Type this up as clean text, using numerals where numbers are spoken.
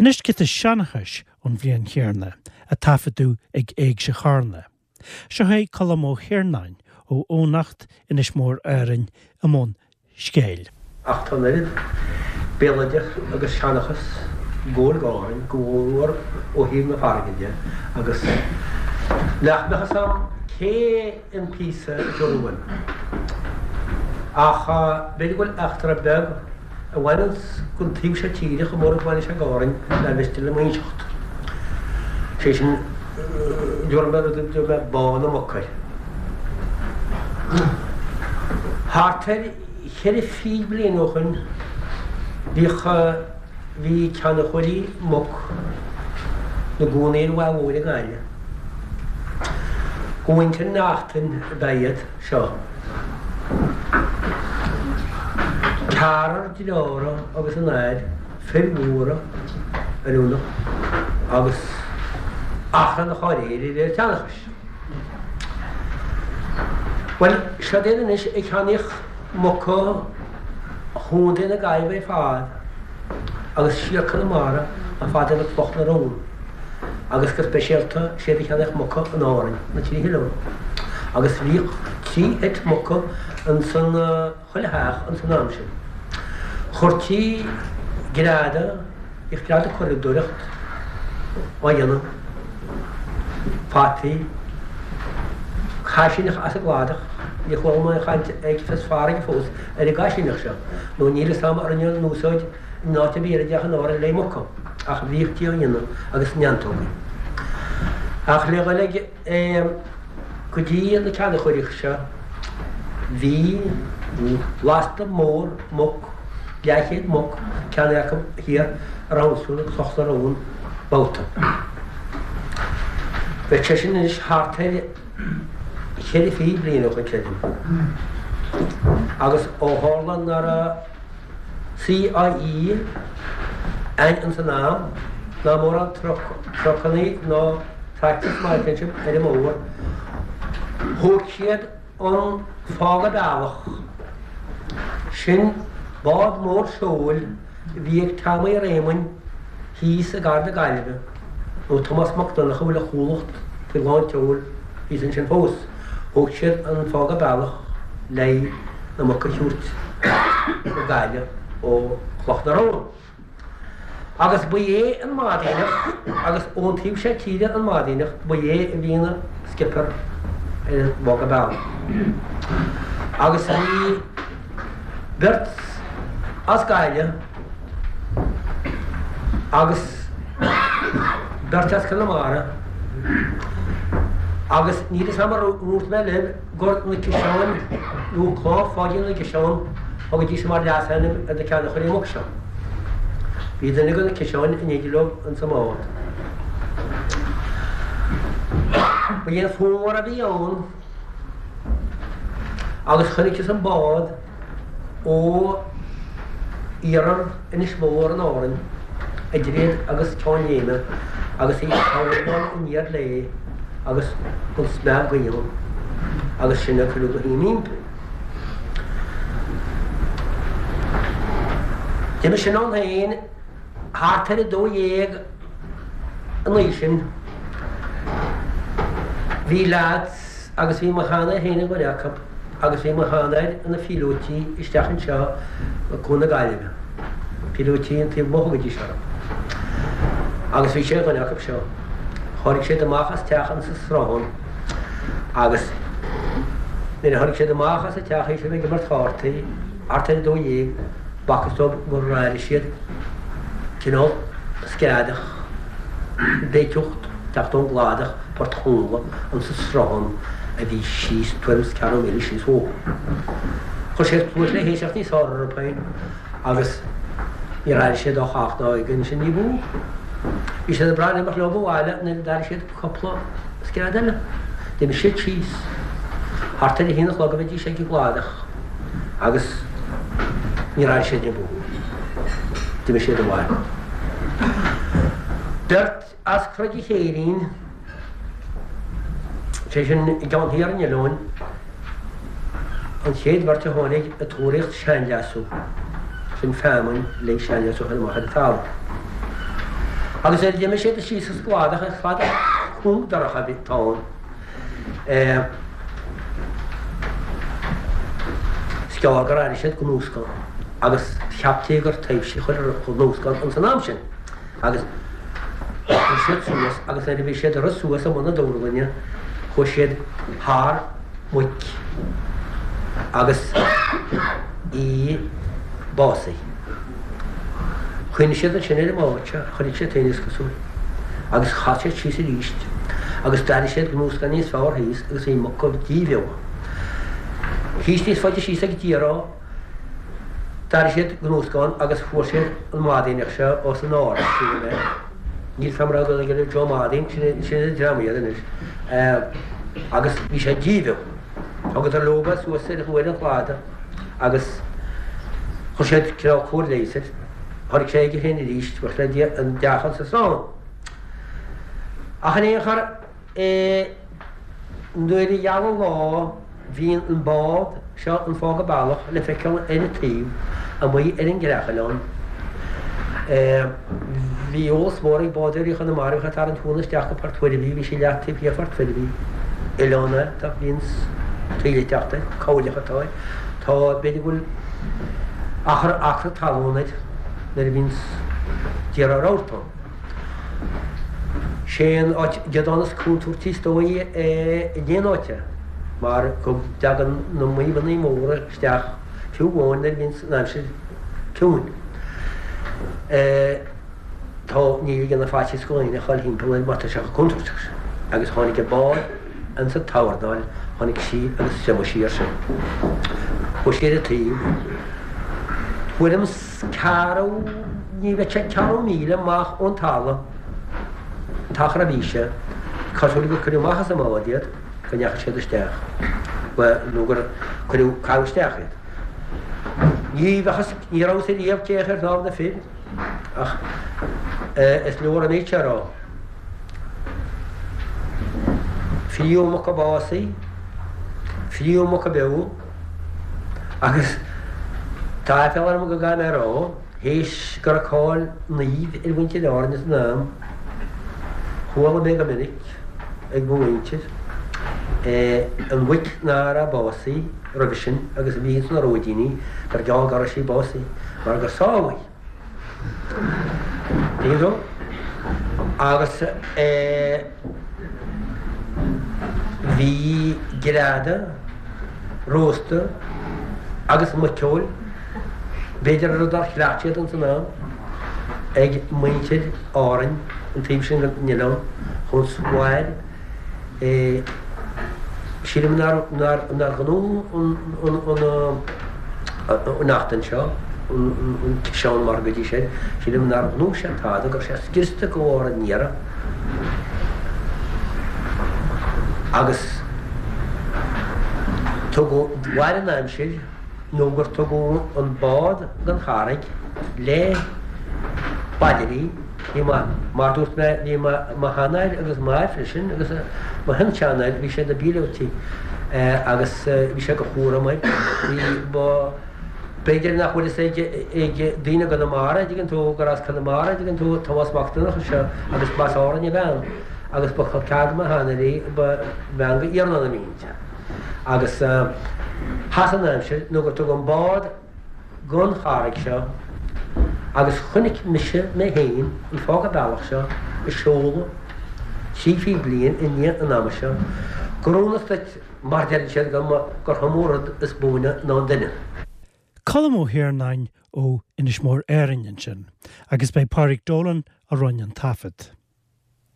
Anois giota seanchais ón bhliain chéanna, a taifeadadh ag Éigse Charna. Seo é Colm Ó hIarnáin ó Eoghanacht, Inis Mór Árainn, i mbun scéil. Ach tá an oiread béaloideas agus seanchas ag gabháil d'Árainn, go mórmhór ó thaobh na farraige de, agus nach mbeadh fhios a'm cé an píosa a thiúrfaidh uaim. Ach b'fhéidir go bhfuil eachtra beag a bhaineanns gon taobh seo tíre chomh mór is a bhaineann sé d'Árainn nár mhiste liom a inseacht. Sé sin, déarfaidh mé rud a dtabharfaidh mé Bá na Muc air. Thart ar cheithre fichid bliain ó shoin bhíodh, bhí ceannaitheoirí muc 'na gcónaí ar an Mhaigh Mhóir i nGaillimh. Ó mhuintir Neachtain ab ea iad seo. Ceathrar deartháireacha agus a n-athair, fir mhóra oiriúnach agus achrannach dháiríre de réir seanchais. Bhuel, siod iad anois ag ceannaíocht muca Chontae na Gaillimhe ar fad agus siar Conamara chomh fada le Cloch na Rón agus go speisialta siad ag ceannaíocht muca in Árainn, na Trí hOileán. Agus bhíodh trí sheit muca insan chuile theach ins an am sin. Chuirtí greadadh, bhíodh greadadh curadóireacht á dhéanamh, fataí, caisíneach as an gcladach, níor chuala mé aon chaint ag fios farraige fós ar an gcaisíneach seo, nó níl fhios a'm ar rinneadh an úsáid in áit ar bith eile ach in Árainn le muca, ach bhíodh á dhéanamh agus neantógaí. Ach le dhul ag. Go dtí na ceannaitheoirí seo bhí lasta mór muc, leathchéad muc, ceannaithe acu thiar i Roundstone i gCloch na Rón babhta. Bheadh sé sin anois thart ar cheithre fichid bliain ó shoin, creidim. Agus ó tharla ná raibh CIE ann ins an am, ná mórán trucannaí ná tractors mar a sibh ar an mbóthar, thóg siad an Fága Bealach. Sin bád mór seoil a bhí ag Tommy Réamoinn thíos i gCathair na Gaillimhe, nó Tomás Mac Donncha a bhfuil a chuallacht faoi lán tseoil thíos ansin fós. Thóg siad an Fága Bealach le na muca a thabhairt go Gaillimh ó Chloch na Rón. Agus ba é an Madaoineach, agus ón taobh seo tíre an Madaoineach, ba é a bhí ina skipper ar an bhFága Bealach. Agus bhí beirt as Gaillimh agus beirt as Conamara agus níl fhios a'm ar dhúirt mé libh gur na Ciseáin nó Clann Pháidín na gCiseán a thugaidís mar leasainm ar na ceannaitheoirí muc seo. Bhí duine de na Ciseáin in éindí leo ins an mbád. Ba é an fómhar a bhí ann agus chonaiceas an bád ó iarthar Inis Mór in Árainn, idir iad agus Ceann Léime, agus í ag tuirlingeáil aniar léi agus an smeach gaoithe ann, agus sinn ag cuireadh go hImpí. D'imigh sin ann féin thart ar 12 an oíche sin. Bhí leaids agus bhí mo sheanathair féin ar dhuine acu agus bhí mo sheanathair ina phíolótí isteach anseo i gCuan na Gaillimhe, píolótí an taobh amuigh a thugaidís orthu. Agus bhí sé ar dhuine acu seo. Tháinig siad amach as teach insa Sruthán agus nuair a tháinig siad amach as an teach théis a bheith ag imirt chártaí thart ar a 12, b'fhacthas dóibh gur airigh siad cineál screadach, béicíocht teacht ón gcladach Port Chonghla insa sruthán a bhí síos tuairim is ceathrú míle síos uathu. Chuir siad cluas le héisteacht níos fearr orthu féin agus níor airigh siad ach ach ná ag ansin ní b'fhiú. Bhí siad ag brath imeacht leo abhaile nuair a d'airigh siad cúpla scread eile. D'imigh siad síos. Thart ar a haon a chlog a bheidís ag an gcladach agus níor airigh siad ní b'fhiú. D'imigh siad abhaile. Beirt As Croid an Chéirín, sé sin i gceann thiar an oileáin, an chéad bheirt a tháinig ag tóraíocht seanleasú, sin feamainn le seanleasú a chur amach ar an talamh. Agus nuair a d'imigh siad síos an cladach, an cladach cúng dorcha a bhí ann, is gearr gur airigh siad gnúscán agus cheaptaí gur taibhsí a chuir an gnúscán ins an am sin. Agus rith siad suas agus nuair a bhí siad ag rith suas i mbun na dúrlainne chuaigh siad thar muic agus í básaithe. Chuimhnigh siad ansin ar an mbád seo, chonaic siad féin is cosúil, agus chas siad síos arís agus d'airigh siad gnúscán níos fearr thíos agus bhí muc díbheo. Thíos níos faide síos ag Diará, d'airigh siad gnúscán agus fuair siad an Madaoineach seo os an ard, sílim é. Níl 's a'm an raibh aige Joe Madaoin, sin an dream iad anois. Agus bhí sé díbheo. Thugadar leo é suas ar an chladach agus chuir siad cineál cóir leighis air. Tháinig sé aige féin arís, buíochas le Dia, an deachán sa srón. Ach in aon chor, Nuair a gheal an lá bhíonn an bád seo an Fága Bealach le feiceáil ar an taobh amuigh ar an gCreachoileán. Bhí eolas mór ag bádóirí Chonamara a bhíodh ag tarraingt mhóna isteach go Port Mhuirbhigh, bhí sí leath taobh thiar Phort Mhuirbhigh. Oileán é, tá bhíonn taoille ag teacht air, cabhairleach atá air. Tá, b'fhéidir go bhfuil achar acra talún air nuair a bhíonns d'iarraidh rabharta ann. Sé an áit geadán is contúirtí is dóigh in aon áit é, mar go dtagann na maidhmeanna móra isteach fiú amháin nuair a bhíonns an aimsir ciúin. Tá, ní ligeann faitíos do dhaoine a ghabháil thimpeall air mar tá sé chomh contúirteach sin. Agus tháinig an bád insa tSabhardáil, tháinig sí agus thriomaigh sí air sin. Chuaigh sí ar an taobh. Tuairim 's. Ceathrú, ní bheadh sé ceathrú míle amach ón talamh, an t-achar a bhí sé, cosúil gur cuireadh amach as an mbád iad, go ndeachaigh siad isteach, bhuel, nó gur cuireadh, caitheadh isteach iad. Ní bheadh fhios, ní raibh fhios ariamh cé ar shnámh na fir, ach is leor an méid seo a rá. Friú muca básaithe, friú muca beo, Agus tá aiféala orm go gcaithfidh mé a rá, théis go raibh cáil naoimh ar mhuintir Árainn san am, chuala mé go minic ag mo mhuintir, an mhuic ná raibh básaithe roimhe sin agus a bhí ins na róidíní, gur geall go raibh sí básaithe, mar gur sámh í. Tuigeann tú? Agus bhí greadadh, rósta agus muiceoil, b'fhéidir rud nár chleacht siad ins an am, ag muintir Árainn, an taobh sin den oileán, chun mhair. Sílim nár ghnóthaigh an fhionnachtain seo, an ciseán mar go dtí sin, sílim nár ghnóthaigh sé tada, go raibh sé scriosta de bharr an iarraidh agus tugadh, mhair an aimsir nó gur tugadh an bád don charraig le baidirí, Bhí mo, mar dúirt mé, bhí mo, mo sheanathair agus m'athair freisin agus mo shin-seanathair, bhí siad ina bpíolótaí agus bhí sé de chúram air. Bhí mo, b'fhéidir nach bhfuil fhios ag, ag daoine i gConamara, an dtuigeann tú, gur as Conamara, an dtuigeann tú, Tomás Mac Donncha seo agus b'as Árainn a bhean agus ba chol ceathar do mo sheanathair í, ba bhean go Iarnán a bhí inti. Agus sheas an aimsir nó gur tugadh an bád, gon charraig seo agus chonaic mise mé féin an fága bealach seo a seoladh 30 bliain i ndiaidh an ama seo gur ionas duit mar deireann siad go mba gur iomaí rud is buaine ná an duine. Colm Ó hIarnáin ó Inis Mór Árainn ansin agus b'é Pádraig Dolan a rinne an taifead.